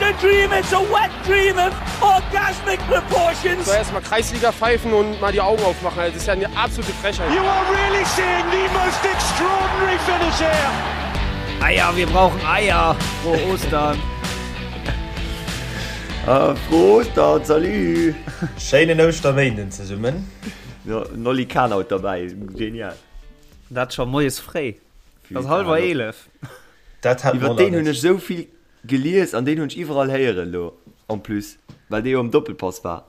a dream, it's a wet dream of orgasmic proportions. Soll erstmal Kreisliga pfeifen und mal die Augen aufmachen, das ist ja eine absolute Frechheit. You are really seeing the most extraordinary finish here. Eier, wir brauchen Eier. Frohe Ostern. Ah, frohe Ostern, salut. Schéinen Ouschterméinden zesummen. Jo, Nolly Kahn haut derbäi, genial. Dat scho moies fréi. Et ass hallwer 11. Dat hat Iwwer deen hunn ech esou vill gelies an deen hunn ech iwwerall héieren elo en plus, well dee jo am Doppelpass war.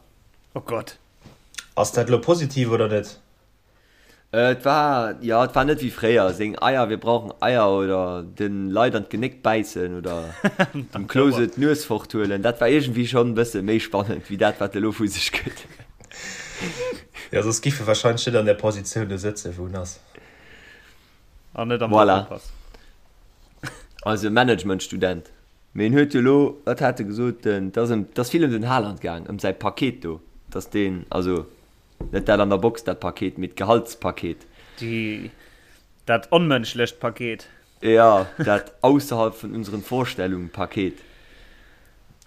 Oh Gott. Ass dat elo positiv oder net? Et war, jo, et war net wéi fréier, seng Eier, wir brauchen Eier oder den Leit an d'Genéck bäissen oder dem Klose d'Nues forthuelen. Dat war iergendwéi schonn e bësse méi spannend wéi dat, wat e lo vu sech gëtt. Jo, soss giff e warscheinlech net an där Positioun do sëtzen, wou en ass. An net am Voilà. Doppelpass. Also Managementstudent. Mee en huet jo elo, wat hat e gesot, den, et ass ëm, et ass vill ëm den Haaland gaang, ëm säi Paket do, dass deen, also net dat an der Box, dat Paket, mee d'Gehaltspaket. Déi, dat onmënschlecht Paket. Jo, dat ausserhalb vun unseren Vorstellungen Paket.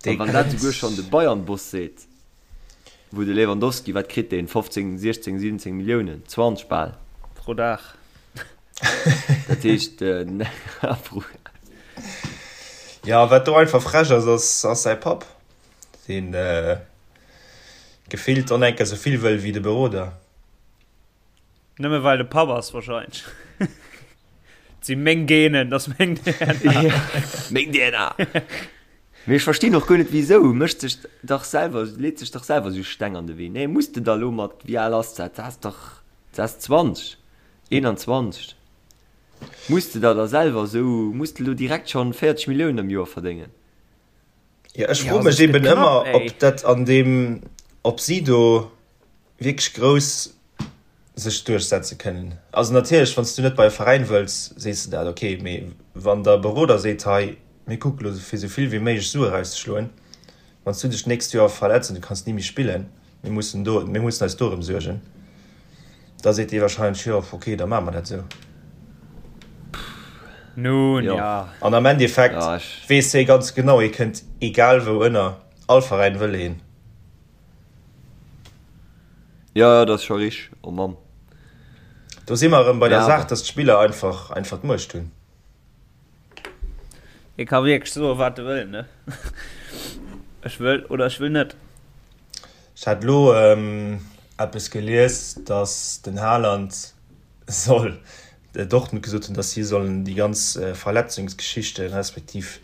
An wann dat souguer schonn de Bayern-Boss seet, Wou de Lewandowski, wat kritt deen, 15, 16, 17 Milliounen, 20 bal. Pro Dag. Dat heescht, pro. Jo, wat do einfach frech ass, ass, ass säi Papp, deen gefillt och enker esou vill wëll wéi de Beroder. Nëmme well de Papp ass wahrscheinlech. Et si meng Genen, dat ass meng DNA. Meng DNA! Mee ech verstinn och guer net wisou. Mécht sech dach selwer, leet sech dach selwer esou Steng an de Wee. Nee, muss de da lo mat, wéi al ass dat? Dat ass dach, dat ass 20, 21. Muss de da da selwer esou, muss de lo direkt schonn 40 Milliounen am Joer verdéngen? Jo, ech froe mech eben ëmmer, ob dat an deem, ob si do wierklech grouss sech duerchsetze kënnen. Also natierlech, wann s du net bei e Veräin wëlls, sees de dat, ok, mee wann der Beroder seet, hei mir kucke lo fir esou vill wéi méiglech Sue erauszeschloen, wann s du dech d'nächst Joer verletz an du kanns ni méi spillen, mir mussen do, mir mussen eis dorëm suergen, da seet dee wahrscheinlech, jo ok, da maache mer dat esou. Nun Jo. ja. An am Endeffekt Ja, ech. weess hie ganz genau, hie kënnt egal wou ënner, all Veräin wëll hien. Jo, jo, dat ass scho richteg. Oh Mann. Do si mer erëm bei der Ja, Saach, dass d'Spiller einfach, einfach d'Muecht hunn. Hie ka wierklech soen, wat e wëll, ne? Ech wëll oder ech wëll net. Ech hat elo eppes gelies, dass den Haaland soll Dortmund gesot hunn, dass si sollen déi ganz Verletzungsgeschichten, respektiv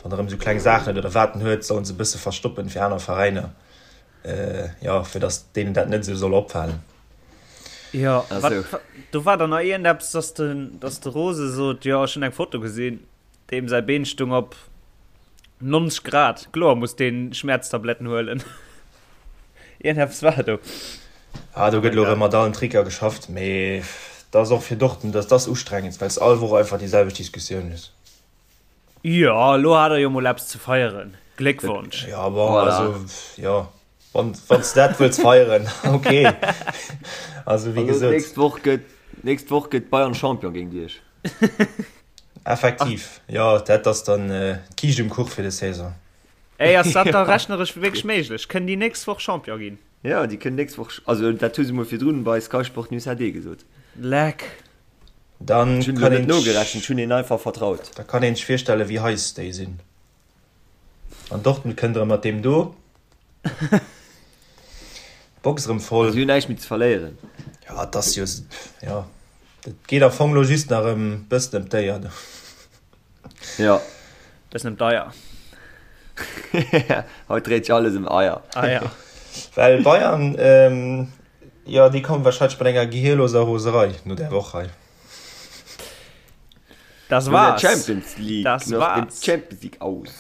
wann erëm esou kleng Saachen huet oder wat en huet, sollen se e bësse verstoppen fir aner Veräiner, jo, fir dass deenen dat net esou soll opfalen. Jo, wat, do war dann nach iergendeppes, dass de, dass de Rose sot, jo, ech hunn eng Foto gesinn, deem säi Been stung op 90 Grad, kloer muss deen Schmäerztabletten huelen. Iergendeppes war do. Ah, do gëtt elo erëm mat allen Tricker geschafft, mee dat ass och fir Dortmund, dat ass ustrengend, well s all Woch einfach déi selwecht Diskussioun hues. Jo, elo hat der jo mol eppes ze feieren. Gléckwonsch! Jo, bon, Voilà. also, jo, wann, wann s de dat wëlls feieren, ok. Also, wéi Also, gesot. d'nächst Woch gëtt, d'nächst Woch gëtt Bayern Champion géint iech. Effektiv, jo, dat ass dann d'Kiischt um Kuch fir des Saison. Ey, ass dat da rechneresch wierklech méiglech? Kënnen déi nächst Woch Champion ginn? Jo, déi kënnen nächst Woch, also dat hu se mol virdrun bei Sky Sport News HD gesot. Leck. Dann Ech hunn elo kann net een nogerechent, ech hunn hinnen einfach vertraut. Da kann een sech virstellen, wéi heiß déi sinn. An Dortmund kënnt erëm mat deem do. D'Box erëm voll. Si hunn näischt méi ze verléieren. Ja, et ass jo, jo, et geet am Fong elo just nach ëm bëssen ëm d'Éier do. Jo. Bëssen ëm d'Eier. Haut dréit sech alles ëm Eier. Eier. Well Bayern, jo, déi kommen wahrscheinlech mat enger gehirloser Roserei no där Woch hei. Das No der war's. Champions League, Das nach dem war's. Champions League aus.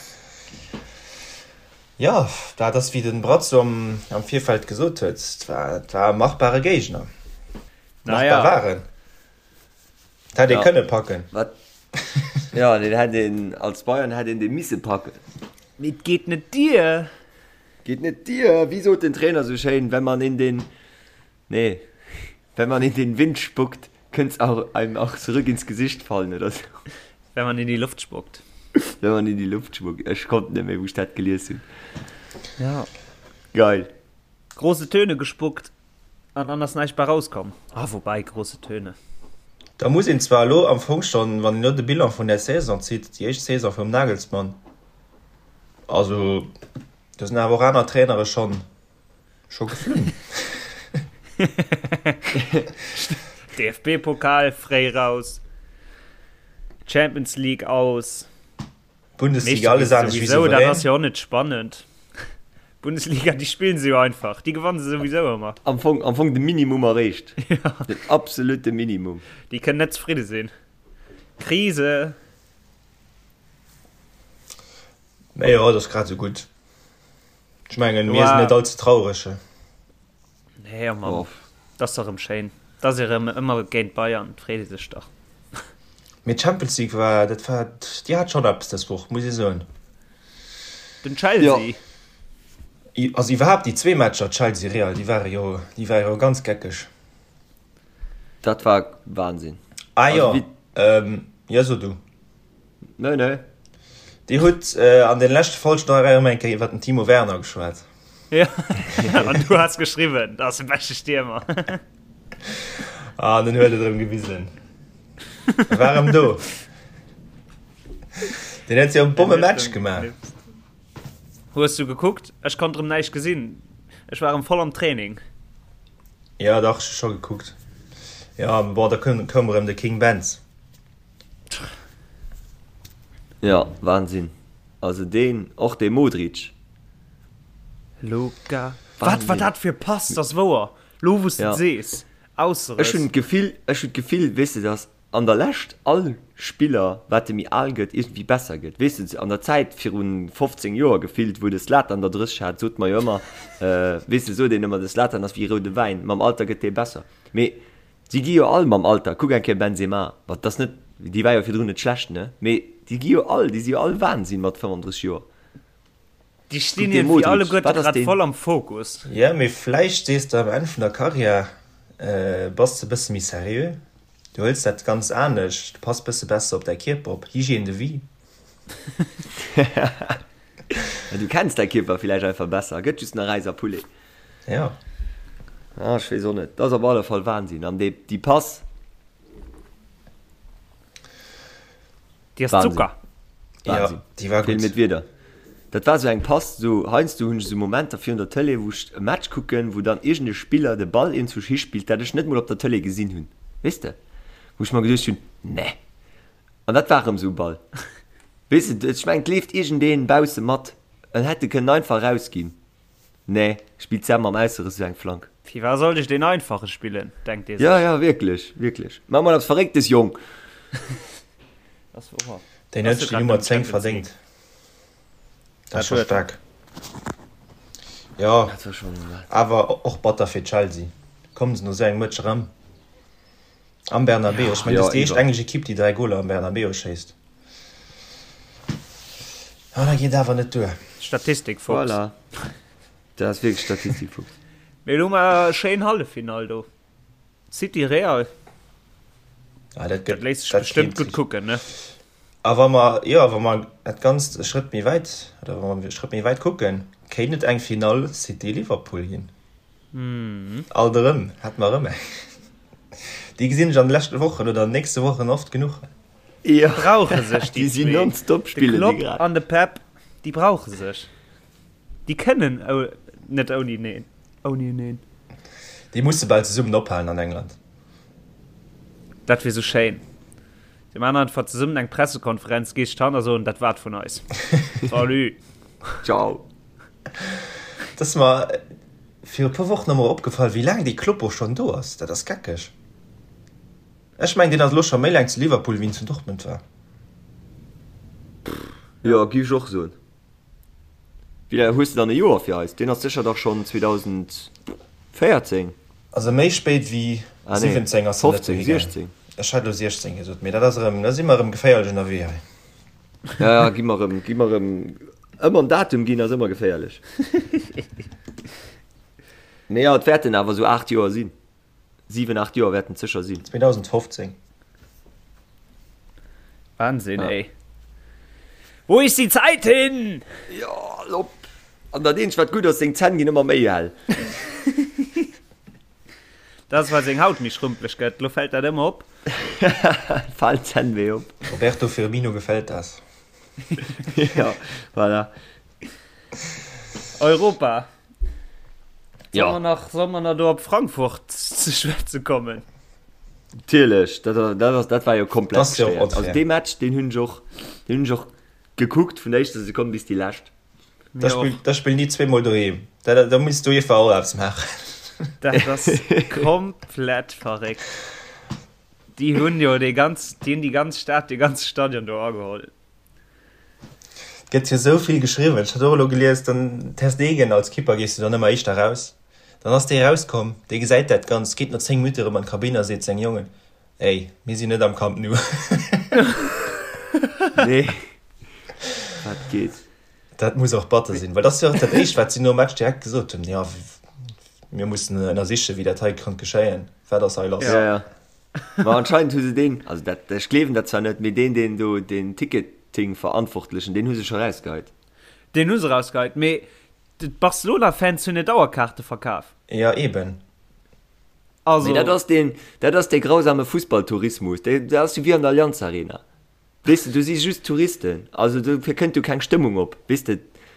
Jo, dat ass wéi den Brazzo am, am Virfeld gesot huet, et war, et war e machbare Géigner. Machbar Naja. war en. Et hätt ee Ja. kënne packen. Wat? Ja, deen hätt een, als Bayern hätt een dee misse packen. Mee et geet net dier. Geet net dier. Wéi sot den Trainer sou schéin, wenn man in den, nee, wenn man in den Wind spuckt, könnts auch einem auch zurück ins Gesicht fallen oder sou. Wenn man in die Luft spuckt. Wenn man in die Luft spuckt. Ech konnt net méi, wou ech dat gelies hunn. Ja. Geil. Große Töne gespuckt an dann ass näischt bei rauskomm. Ah, woubäi, große Töne. Da muss een zwar elo am Fong schonn, wann een elo de Bilan vun där Saison zitt, déi éischt Saison vum Nagelsmann, also do sinn awer och aner Trainere schonn scho geflunn. DFB-Pokal fréi raus, Champions League aus. Bundesliga alles anescht wéi souverän. Dat ass jo och net spannend. Bundesliga, déi spillen se jo einfach. Déi gewanne se souwisou ëmmer. Am Fong, am Fong de Minimum erreecht. Ja. Den absolute Minimum. Déi kënnen net zefridde sinn. Krise. Mä jo, dat ass grad esou gutt. Ech mengen, mir sinn net all ze traureg. Nee, oh Mann. Dat ass dach erëm schéin. Dat ass erëm ëmmer géint Bayern, et freet ee sech dach. Mee d'Champions League war, dat war, déi hat schonn eppes dës Woch, muss ee soen. Den Chelsea. Jo. Also iwwerhaapt déi zwee Matcher, Chelsea-Real, déi ware jo, déi ware jo ganz geckeg. Dat war Wahnsinn. Ah jo, jo so du. Nee, nee. Dir hutt an den leschte Folgen nach erëm eng Kéier iwwer den Timo Werner geschwat. Ja, an du has geschriwwen, dat ass de beschte Stiermer. Ah, den huet et erëm gewisen. E war erëm do. Den huet jo e Bommematch gemaach. Hues du gekuckt? Ech konnt erëm näischt gesinn. Ech war erëm voll am Training. Ja, dach, ech hu scho gekuckt. Ja, bon, da koum erëm de King Benz. Ja, Wahnsinn. Also deen, och dee Modric. Luka. Wat war dat fir Pass? Dat ass wouer. Lo wou s de et sees. Ausseress. Ech hunn d'Gefill, ech hunn d'Gefill, weess de, dass an der Lescht all Spiller, wat e méi al gëtt, iergendwéi besser gëtt. Weess de, an der Zäit viru 15 Joer gefillt, wou de Zlatan der 30 hat, sot mer jo ëmmer, weess de, sot een ëmmer, de Zlatan ass wéi roude Wäin, mam Alter gëtt dee besser. Mee Si gi jo all mam Alter, kuck eng Kéier Benzema, wat dat ass net, dee war jo virdrun net schlecht, ne, mee déi gi jo all, déi si jo all Wahnsinn mat 35 Joer. Déi stinn iergendwéi alleguerte grad voll am Fokus. Jo, mee vläicht sees de am Enn vun der Karriär bass de bësse méi seriö, du hëls dat ganz anescht, du pass bësse besser op däi Kierper op, Hygiène de vie. Du kenns däi Kierper villäicht einfach besser, gëtt just nach Räis a Poulet. Ja. Ah, ech weess och net. Dat ass op alle Fall Wahnsinn. An déi, déi Pass. Déi ass Zucker. Wahnsinn. Ja, déi war gutt. Feelen mir d'Wierder. Dat war sou eng Pass, sou heiansdo hunn ech sou Momenter virun der Tëlee, wou ech e Match kucken, wou dann iergend e Spiller de Ball iergendzwousch hispillt, dat ech net mol op der Tëlee gesinn hunn. Weess de? Wou ech mer geduecht hunn, Nee. An dat war erëm sou e Ball. Weess de, ech mengen, et leeft iergendeen bausse mat, en hätt e kënnen einfach erausginn. Nee, spillt Sam mam Ausseress esou eng Flank. Firwat sollt ech deen einfache spillen, denkt ee sech. Ja, ja, wierklech, wierklech. Maach mol eppes Verrécktes, Jong! Ass wouer. Deen huet sech déi Nummer 10 verdéngt. Dat ass scho staark. Jo, awer och batter fir Chelsea. Kommen se no esou engem Match erëm am Bernabeu? Ech mengen, dat ass déi éischt englesch Ekipp, déi 3 Goler am Bernabeu schéisst. Ah, dat geet awer net duer. Statistikfuchs. Voilà. Dat ass wierklech Statistikfuchs. Mee elo hu mer e schéin Halleffinall do. City Real. Ah, dat gëtt, dat léisst sech bestëmmt gutt kucken, ne? A wa mer, jo, wa mer dat Ganzt e Schrëtt méi wäit, oder wa mer e Schrëtt méi wäit kucken, kéint et eng Finall City-Liverpool ginn. Alt erëm, hätte mer erëm eng. Déi gesinn ech an de leschte Wochen oder an den nächste Wochen oft genuch. Ja. Brauche sech déi zwee. Nonstop De Klopp an de Pep, déi brauche sech. Déi kënnen net ouni neen. Ouni eneen. Déi musse bal zesummen ophalen an England. Dat wier sou schéin. Déi man einfach zesummen eng Pressekonferenz, gees d'Hand a soen, dat war et vun eis. Salut. Ciao. Et ass mer viru e puer Wochen emol opgefall, wéi laang dee Kloppo schonn do ass. Dat ass geckeg. Ech mengen deen ass elo scho méi laang zu Liverpool wéi en zu Dortmund war. Jo, giff ech och soen. Wéi laang hues de dann e Joer fir eis? Deen ass sécher dach schonn 2014? Also méi spéit wéi 17 ass en net dohi gaangen. Ech hat elo 16 gesot, mee dat ass erëm, da si mer erëm geféierlech ënnerwee hei. Ja, ja, gi mer erëm, gi mer erëm, ëmmer en Datum ginn ass ëmmer geféierlech. Mee jo, et wäerten awer esou 8 Joer sinn. 7, 8 Joer wäerten et sécher sinn. 2015. Wahnsinn, ja. ey. Wo ist die Zeit hin? Jo, al op. An dat eenzegt wat gutt ass, seng Zänn ginn ëmmer méi hell. Dat ass well seng Haut méi schrumpeleg gëtt, lo fält dat ëmmer op. Falen d'Zänn méi op. Roberto Firmino gefällt das. Ja, voilà. Europa. Solle mer nach, solle mer nach do op Frankfurt ze schwätze kommen? Natierlech, dat, dat ass, dat war jo komplett Das jo gestört. Also dee Match, deen hunn ech och, deen hunn ech och gekuckt vun der éischter Sekonn bis déi lescht. Da spill, da spillen déi zweemol doheem. Da, da, da muss d'UEFA och eppes maachen. Dat ass komplett verréckt. Déi hunn jo déi ganz, déi hunn déi ganz Stad, dee ganze Stadion do ageholl. Et gëtt jo esou vill geschriwwen. Ech hat och elo gelies, den Ter Stegen als Kipper gees du dann ëmmer éischter raus. Dann ass dee rauskomm, dee gesäit dat Ganzt, geet no 10 Minutte erëm an d'Kabinn a seet seng Jongen, Ey, mir sinn net am Camp Nou. Nee, wat geet? Dat muss och batter sinn, well dat ass jo och dat Éischt, wat si nom Match direkt gesot hunn, Jo, mir mussen ënnersichen, wéi dat hei konnt geschéien. Wat ass hei lass? Ja, ja. Ma anscheinend hu se deen, also dat, ech gleewen dat zwar net, mee deen, deen do den Ticketing-Verantwortlechen, deen hu se scho rausgeheit. Deen hu se rausgeheit, mee d'Barcelona-Fans hunn net Dauerkaarte verkaf. Ja, eben. Also. Mee dat ass deen, dat ass dee grausame Fussballtourismus, dee, dat ass jo wéi an der Allianz Arena. Weess de, do si just Touristen, also dofir kënnt do keng Stëmmung op, weess de.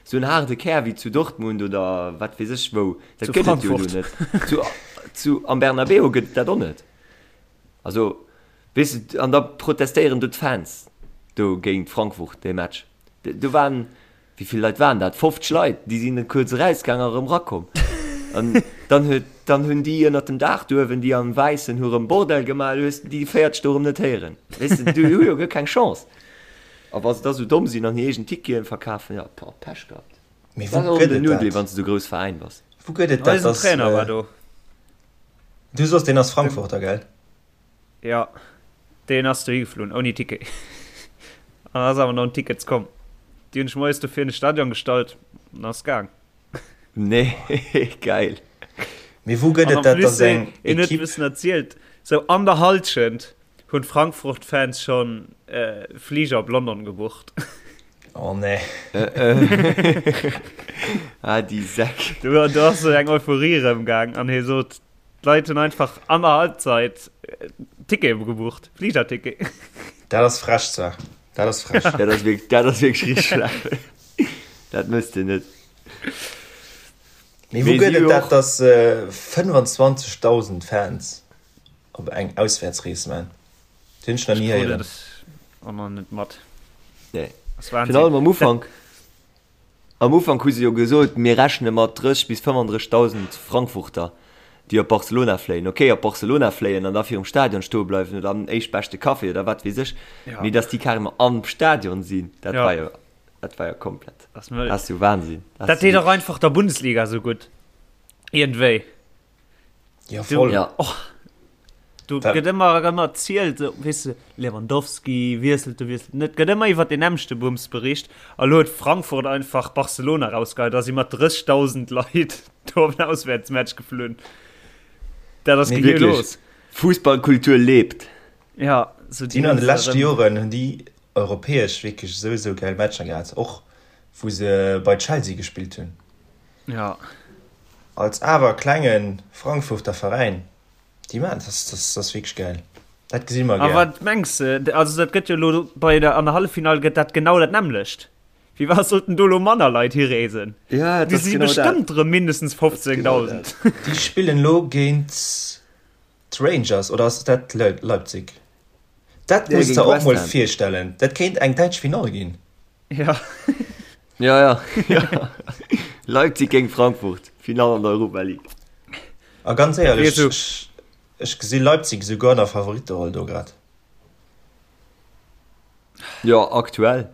Sou en haarde Kär wéi zu Dortmund oder wat weess ech wou, dat gëtt et jo do net. Zu, zu, am Bernabéu gëtt et dat och net. Also, weess de, an da protestéieren do d'Fans do géint Frankfurt dee Match. Do waren, Wéi vill Leit waren dat? 50 Leit, déi sinn kuerz erausgaang a rëm rakomm. An dann huet, dann hunn déi ënnert dem Daach do uewen, déi am Wäissen, hu rëm Bordell gemaach, du hues déi 40 do rëm net héieren. Weess de, déi hu jo guer keng Chance. A wa se da sou domm sinn an hir eegen Ticketen verkafen, jo, boah, Pech gehabt. Mee wou gëtt et dat? Wann s de sou grouss Veräin bass. Wou gëtt et dat, Eisen Trainer war do. Du soss, deen ass Frankfurter, gell? Jo, deen ass dohi geflunn ouni Ticket an ass awer no den Tickets komm. Déi hunn sech moies do vir an de Stadion gestallt an ass gaang. Nee, geil. Mee wou gëtt et dat, dass eng Equipe. En huet e bëssen erzielt, sou an der Halschent hunn d'Frankfurt-Fans schonn Fliger op London gebucht. Oh nee. Ah, déi Säck. Do ass sou eng Euphorie erëmgaang an hie sot, D'Leit hunn einfach an der Halbzeit Tickete gebucht, Fligerticket. Dat ass frech zwar. Dat ass frech. Dat ass wierklech, dat ass wierklech richteg schlecht. Dat mësst de net. Mee wou gëtt et dat, dass 25.000 Fans op eng Auswäertsrees man? Dat hunn ech nach ni héieren. Och nach net mat. Nee. Virun allem am Ufank. Am Ufank hu se jo gesot, mir rechne mat 30 bis 35.000 Frankfurter, déi op Barcelona fléien. Ok, op Barcelona fléien an da virum Stadion stoe bleiwen oder am éischtbeschte Café oder wat weess ech, mee datt déi carrément am Stadion sinn, dat war jo, dat war jo komplett, dat ass jo Wahnsinn. Dat deet och einfach der Bundesliga esou gutt, iergendwéi. Ja, voll. Ja. Och, du gëtt ëmmer erëm erzielt, so, weess de, Lewandowski wiesselt, du wiesselt net. Gëtt ëmmer iwwer den nämmlechte Bums bericht. A lo huet Frankfurt einfach Barcelona rausgeheit a si mat 30.000 Leit do op den Auswäertsmatch geflunn. Dat ass Nee, wirklich. los. Fußballkultur lebt. Ja, so Déi hunn an de leschte Joren hunn déi europäesch wierklech esou esou gäil Matcher gehat, och wou se bei Chelsea gespillt hunn. Ja. Als awer klenge Frankfurter Veräin, déi maachen dat, dat ass wierklech gäil. Dat gesi mer A gär. wat mengs de, also dat gëtt jo elo bei der an der Halleffinall gëtt dat genau dat nämmlecht. Wéi wat sollten do elo manner Leit hireesen? Ja, dat Déi ass si genau dat. bestëmmt erëm mindestens Dat ass genau 15.000. dat. Déi spillen elo géint d'Rangers, oder ass dat Leipzig? Dat Nee, muss de géint der och West mol Ham. virstellen, dat kéint eng däitsch Finall ginn. Ja. Ja, ja, ja. Leipzig géint Frankfurt, Finall an der Europa League. A ganz éierlech, so. ech, ech gesi Leipzig esouguer an der Favoritteroll do grad. Ja, aktuell.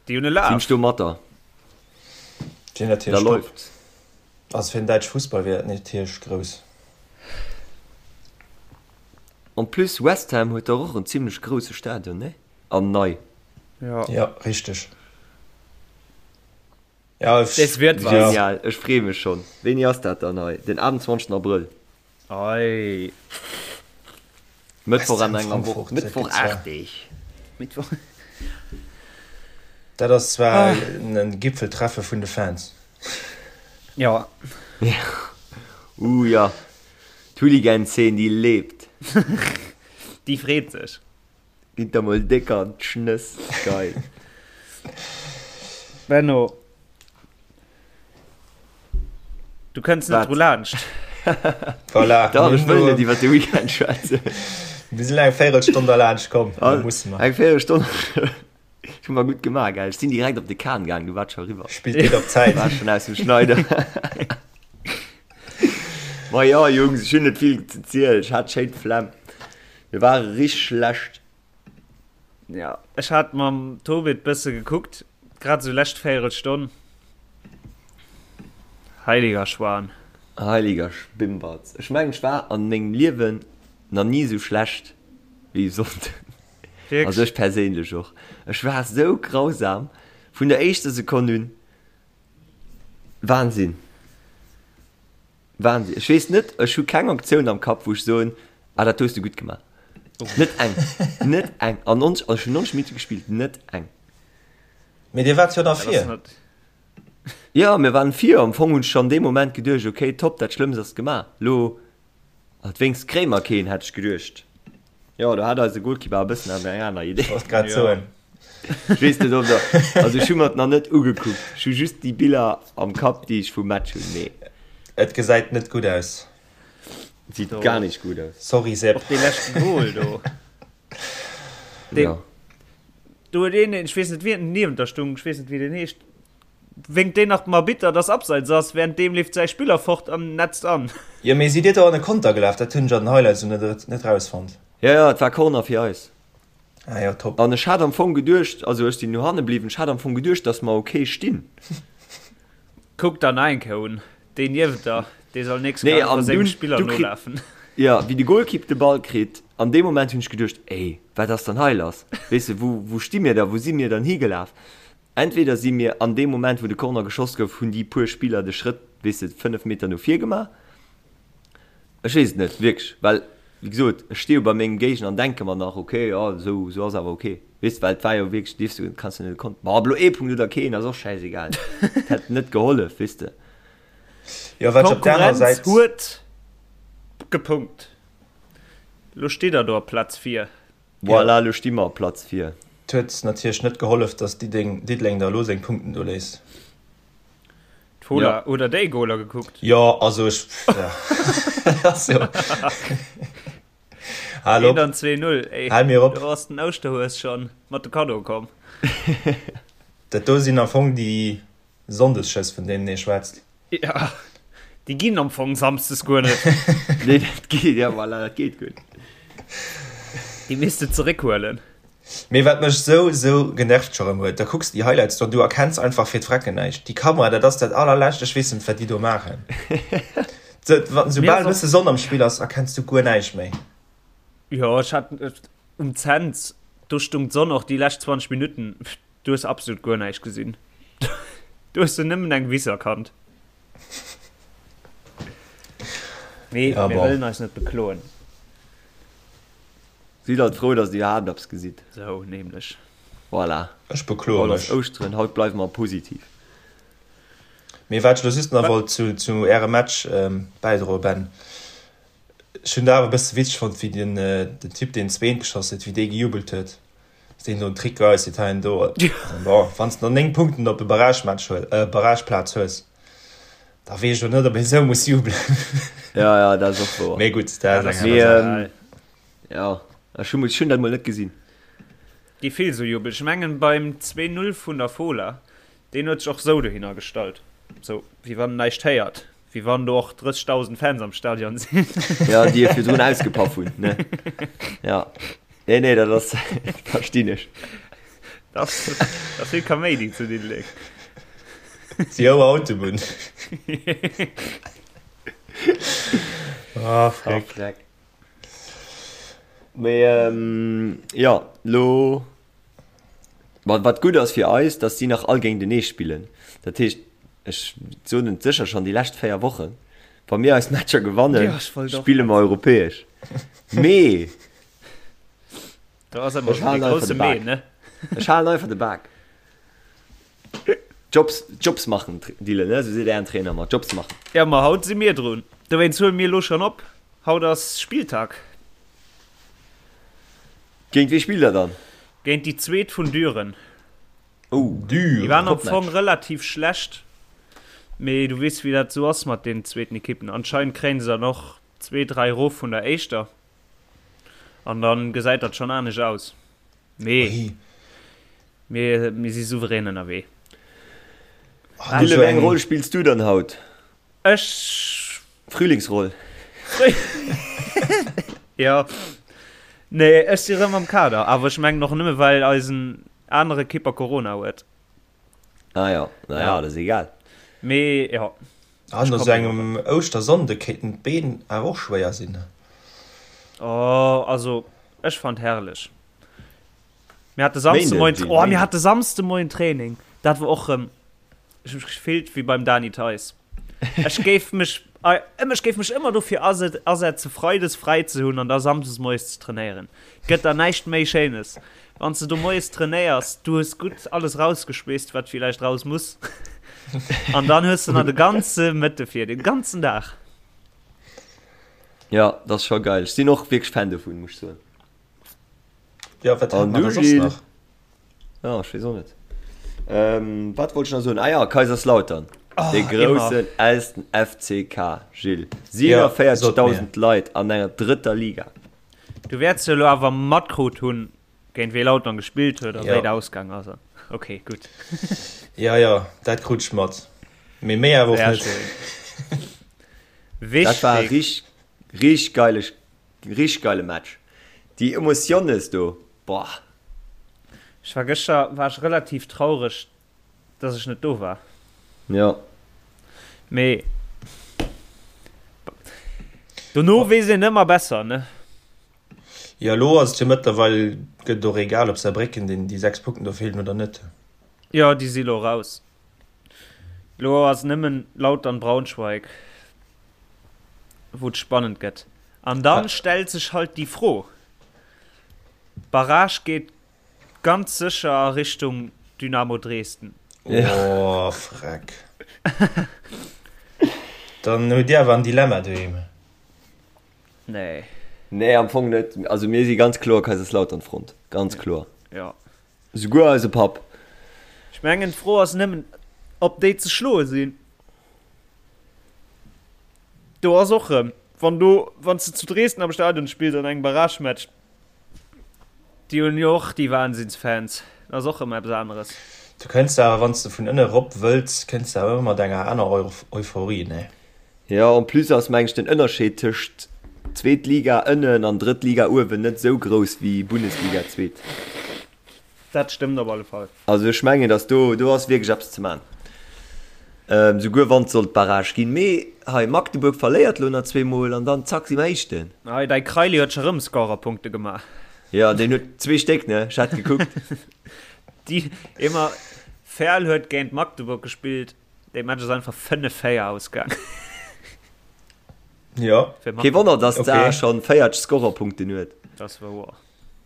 Déi hunn e Laf. Sinn ech do mat der. Déi hunn Da natierlech top. läuft's. Also fir den däitsche Fussball wier dat natierlech grouss. En plus West Ham huet dach och en zimlech grousse Stadion, ne? An nei. Ja. Ja, richteg. Ja, ech, Des wird was. Genial, ech freeë mech schonn. Wéini ass dat dann hei? Den 28 Abrëll. Dat ass zwar en Gipfeltreffe vun de Fans. Jo. Uh jo, d'Hooligan-Zeen déi lebt. Déi freet sech. Gitt der mol déck an d'Schnëss, geil. Benno, du kënns net dru laanscht. Voilà. Dach, ech wëll net iwwer de Weekend schwätzen. Mir sinn eng Véirelstonn derlaanscht komm, da musse mer. Eng Véirelstonn. Ech hu mer gutt gemaach, gell? Ech sinn direkt op de Kahn gaang, du waart scho eriwwer. Spillt geet op Zäit. War schon aus dem Schneider. Ma jo, Jungs, ech hunn net vill ze zielen. Ech hat schéin d'Flemm. Mir ware richteg schlecht. Ja, ech hat mam Tobit bësse gekuckt, grad esou lescht Véierelstonn. Heiliger Schwan. Heiliger Schbimbatz. Ech mengen, ech war an mengem Liewen nach ni esou schlecht wéi e Sonnden. Also ech perséinlech och. Ech war sou grausam vun der éischter Sekonn un. Wahnsinn. Wahnsinn. Ech weess net, ech hu keng Aktioun am Kapp, wou ech soen, ah dat hues du gutt gemaach. Net eng. Net eng. An 90, also ech hunn 90 Minutte gespillt, net eng. Mee dir waart jo da vir. Jo, mir waren vir. Am Fong hunn ech schonn dee Moment geduecht, okay, top, dat Schlëmmst ass gemaach. Lo Alt wéinst kréie mer keen, hätt ech geduecht. Jo, do hat eise Goalkeeper e bëssen awer eng aner Idee. Wollt grad soen. Ech weess net, ob der, also ech hu mer et nach net ugekuckt. Ech hu just déi Biller am Kapp, déi ech vum Match hunn, mee. Et gesäit net gutt aus. Et seet gar nicht gutt aus. Sorry Seb. Och dee leschten Goal do. Deen, Jo. do huet een, ech weess net wien niewent der stung, ech weess net wéi deen heescht, Wénkt deen nach dem Arbitter, dass Abseits ass, währenddeem leeft säi Spiller fort an netzt an. Jo, mee sidd dir do an e Konter gelaf? Dat hunn ech an den Highlights elo net net rausfonnt. Jo, jo, et war Corner fir eis. Ah jo, top. An ech hat am Fong geduecht, also ech sinn no hanne bliwwen, ech hat am Fong geduecht, dass mer ok stinn. Kuck der nach eng Kéier un, deen niewent der, dee soll nächst Nee, Kéier an einfach sengem dunn, Spiller du kritt, nolafen. jo, wéi de Golkipp de Ball kritt, an deem Moment hunn ech geduecht, ey, wat ass dann hei lass? Weess de, wou, wou sti mir da, wou si mir dann higelaf? Entweder si mir an deem Moment, wou de Corner geschoss gouf, hunn déi puer Spiller de Schrëtt, weess de, 5 Meter no vir gemaach. Ech weess et net, wierklech, well, wéi gesot, ech sti jo bei mengem Géigner an denke mer nach, ok, jo, esou, esou ass awer ok, weess de, well et war jo wierklech, dierfs du, kanns du net e Kont, ma ob elo ee Punkt oder keen, ass och schäisegal, et hätt net gehollef, weess de. Jo, wat ech op der anerer D'Konkurrenz Säit. huet gepunkt. Lo steet der do op Plaz 4. Voilà, elo sti mer op Platz 4. Et huet natierlech net gehollef, dass Diddeleng der elo seng Punkten do léisst. D'Fola, hutt der déi Goler gekuckt? Jo, also ech, jo. Hal op. 1 an 2, 0, ey. Hal mir op. Do ass den Ouschterhues schonn mat de Kaddoe komm. Dat do sinn am Fong déi Sonndesschëss, vun deenen ee schwätzt. Ja, déi ginn am Fong samsdes guer net. Nee, dat geet, ja voilà, dat geet guer net. Déi misst de zeréckhuelen. Mee wat mech sou sou genervt scho rem huet, da kucks de déi Highlights do an du erkenns einfach fir d'Frecken näischt. Déi Kamera, dat ass dat allerlescht, ech weess net wat déi do maachen. Soubal e bësse Sonn am Spill ass, erkenns du guer näischt méi. Jo, ech hat um Cents, do stung d'Sonn och déi lescht 20 Minutten. Du hues absolut guer näischt gesinn. Du hues du nëmmen eng Wiss erkannt. Mee Ja, mir bon. wëllen eis net bekloen. Sidd alt frou, dass dir iwwerhaapt eppes gesitt. Sou nämlech. Voilà. Ech bekloe Haut ass mech. Ouschteren, haut bleiwe mer positiv. Mee wat ech elo just nach wollt zu, zu Ärem Match bäidroen, Ben, Ech hunn dat awer e bësse witzeg fonnt, wéi den, den Typ, deen zweent geschoss huet, wéi dee gejubelt huet. Dass deen do en Trick geäuss huet hei an do. Bon, wann s de nach 9 Punkten op e Barragematch hues, äh, Barrageplaz hues, da weess ech och net, ob een esou muss jubelen. Ja, ja, dat ass och wouer. Mee gutt, dat ass eng Mee, aner Saach. ähm, ja, ech hu, ech hunn dat mol net gesinn. Gi vill sou Jubel. Ech mengen beim 2, 0 vun der Fola, deen huet sech och sou dohinner gestallt, sou wéi wann en näischt héiert. Wéi wann do och 30.000 Fans am Stadion sinn. Ja, déi e virdrun ausgepaff hunn, ne? Ja. Nee, nee, dat ass, verstinn ech. Dat ass, dat ass vill Kaméidi zu Diddeleng. Déi hohe Autobunn. Ah, Freck. Ah, Freck. Mee, ähm, ja, lo. Wat gutt ass fir eis, datt si nach all géintenee spillen. Dat heescht, ech soen et sécher schonn déi lescht 4 Wochen, wa mir eis Matcher gewannen, spille mer europäesch. Mee. Do ass ëmmer Ech halen de einfach grousse de Mee, Bak. ne? Ech halen einfach de Bak. Jobs, Jobs machen, Dylan, ne? Sou seet ären Trainer ëmmer, Jobs machen. Ja, ma haut si mir drun. Dowéinst huele mir elo schonn op. Haut ass Spilltag. Géint wee spillt der dann? Géint déi zweet vun Düren. Oh, Déi waren am Topmatch. Fong relativ schlecht, mee du weess wéi dat sou ass mat den zweeten Ekippen. Anscheinend kréien se dann och zwee, dräi erof vun der éischter an dann gesäit dat schonn anescht aus. Mee mir, mir si souverän ënnerwee. Dylan, wéi eng Roll spills du dann haut? Ech. Frühlingsroll. Jo. Nee, ech si rëm am Kader, awer ech mengen och nëmme well eisen anere Kipper Corona huet. Ah jo, na ja, dat ass egal. Mee jo. Ah, no sou engem Ouschtersonnde kéinten d'Been awer och schwéier sinn. Oh, also ech fand herrlech. Mir hate Samsdemoien, oh, mir hate Samsdemoien Training. Dat war och rëm. Ech hu mech gefillt wéi beim Dany Theis. Ech géif mech, ech géif mech ëmmer dofir asetze freides fräi ze hunn an da samsdes moies ze trainéieren. Gëtt der näischt méi Schéines. Wann s de do moies trainéiers, du hues gutt alles rausgeschweesst, wat villäicht raus muss. An dann hues de nach de ganze Mëtte fir, de ganzen Dag. Jo, dat ass scho geil. Ech sinn och wierklech Fan dovun, muss ech soen. Jo, wat hat An mer du da soss Gilles? nach? Ja, ech weess och net. Ähm, wat wollt ech nach soen? Ah ja, Kaiserslautern. Oh, De groussen elsten FCK, Gilles. 47.000 Leit an enger drëtter Liga. Du wäerts jo elo awer matkrut hunn, géint wee Lautern gespillt huet a Ja. wéi et ausgaang ass. Ok, gutt. Ja, ja, dat krut ech mat. Mee méi awer och Sehr net. schön. Dat war Wichtig. richteg, richteg geile, richteg geile Match. Déi Emotionnes do, boah. Ech war gëschter war ech relativ traureg dass ech net do war. Jo. Mee dono weess een ëmmer besser, ne? Jo, elo ass et jo mëttlerweil, gëtt et och egal ob Saarbrécken deen déi 6 Punkten do feelen oder net. Jo, déi si lo raus. Lo ass nëmmen Lautern Braunschweig wou et spannend gëtt. An dann stellt sech halt déi Fro, Barrage geet ganz sécher a Richtung Dynamo Dresden. Oh freck. Dann hutt Dir awer en Dilemma doheem. Nee. Nee, am Fong net. Also mir si ganz kloer Kaiserslautern-Front. Ganz kloer. Ja. Souguer eise Papp. Ech mengen d'Fro ass nëmmen, ob déi ze schloe sinn. Do ass och rëm, wann do, wann s de zu Dresden am Stadion spills an engem Barragematch, déi hunn jo och déi Wahnsinnsfans, dat ass och rëm eppes aneres. Du kënns awer, wann s de vun ënne rop wëlls, kënns de awer ëmmer mat enger aner Euphorie, nee? Jo, en plus ass meng ech den Ënnerscheed tëscht zweet Liga ënnen an drëtt Liga uewen net esou grouss wéi Bundesliga zweet. Dat stëmmt op alle Fall. Also ech mengen, datt do, do ass wierklech eppes ze man. Souguer wann et sollt Barrage ginn. Mee hei, Magdeburg verléiert lo nach zweemol an dann zack si mer Éischten. Hei, däi Kraili huet scho rëm Scorerpunkte gemaach. Jo, deen huet zwee Stéck, ne? Ech hat gekuckt. Déi ëmmer Verl huet géint Magdeburg gespillt, dee Match ass einfach 5, 4 ausgaang. Jo. Kee Wonner, datt d'Saar schonn 40 Scorerpunkten huet. Dat ass wouer.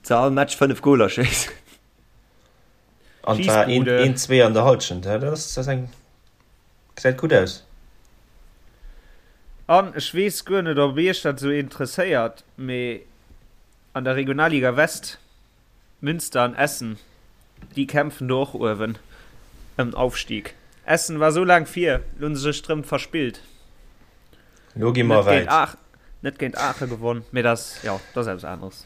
Ze all Match 5 Goler schéissen. An zwar een, zwee an der Halschent, dat ass eng, gesäit gutt aus. An ech weess guer net, ob iech dat esou interesséiert, mee an der Regionalliga West, Münster an Essen, déi kämpfen do och uewen ëm den Aufstieg. Essen war esou laang vir, lo hunn se sech drëm verspillt. Lo gi mer wäit. Net géint Aachen gewonn, mee dat ass, jo, dat ass eppes aneres.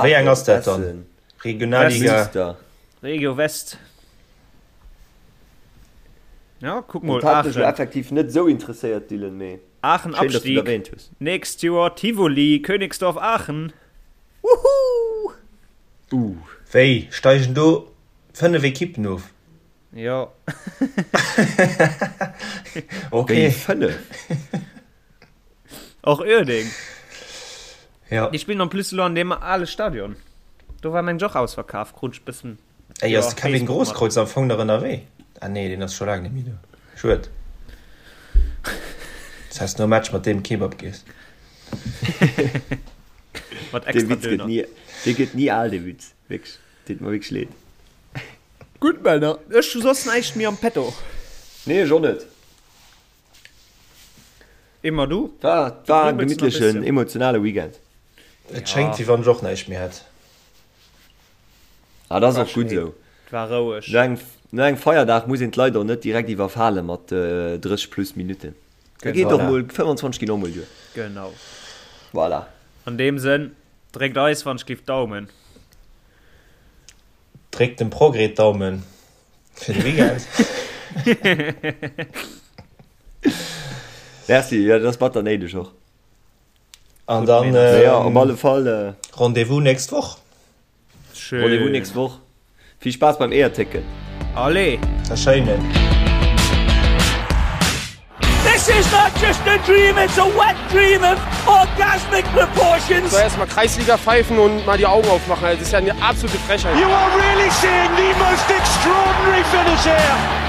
Wéi eng ass dat dann? Regionalliga? Regio West. Ja, kuck mol, Dat hat mech Aachen. effektiv net esou interesséiert, Dylan, mee Aachen schéin, dass du et Abstieg. erwähnt hues. Nächst Joer Tivoli, Königsdorf Aachen. Woohoo! Uh. Wéi, steigen do 5 Ekippen of? Jo. Ok. Wéi 5? Och Uerdeng. Ja. Déi spillen en plus elo an deem ale Stadion. Do war meng ech och ausverkaf, krut ech bëssen. Ey, ass de Kevin Grosskreutz am Fong nach ënnerwee? Ah nee, deen ass scho laang net méi do. Schued. Das heißt, nom Match mat deem Kebab gees. Mat extra Döner. Dee gëtt ni al, dee Witz. Wierklech, deet mer wierklech leed. Gutt Männer, ech hu soss näischt méi am Petto. Nee, ech och net. Emma, du? War, war en gemittlechen, emotionale Weekend. Et schéngt, wéi wann ech och näischt méi hätt. Ah, dat ass och gutt esou. Et war roueg. No engem, no engem Feierdag muss een d'Leit och net direkt iwwerfale mat 30 plus Minutten. Da geet och mol, 25 ginn och mol duer. Genau. Voilà. An deem Sënn, dréckt eis wann ech giff d'Daumen. Dréckt dem Progrès d'Daumen fir de Weekend. Merci, jo dat ass batter néideg och. An dann ja, op alle Fall Rendez-vous nächst Woch. Schön. Rendez-vous nächst Woch. Vill Spaass beim Eeërtécken. Allez! A schéinen. This is not just a dream, it's a wet dream of orgasmic proportions. Soll erstmal Kreisliga pfeifen und mal die Augen aufmachen. Das ist ja eine absolute Frechheit. You are really seeing the most extraordinary finish here.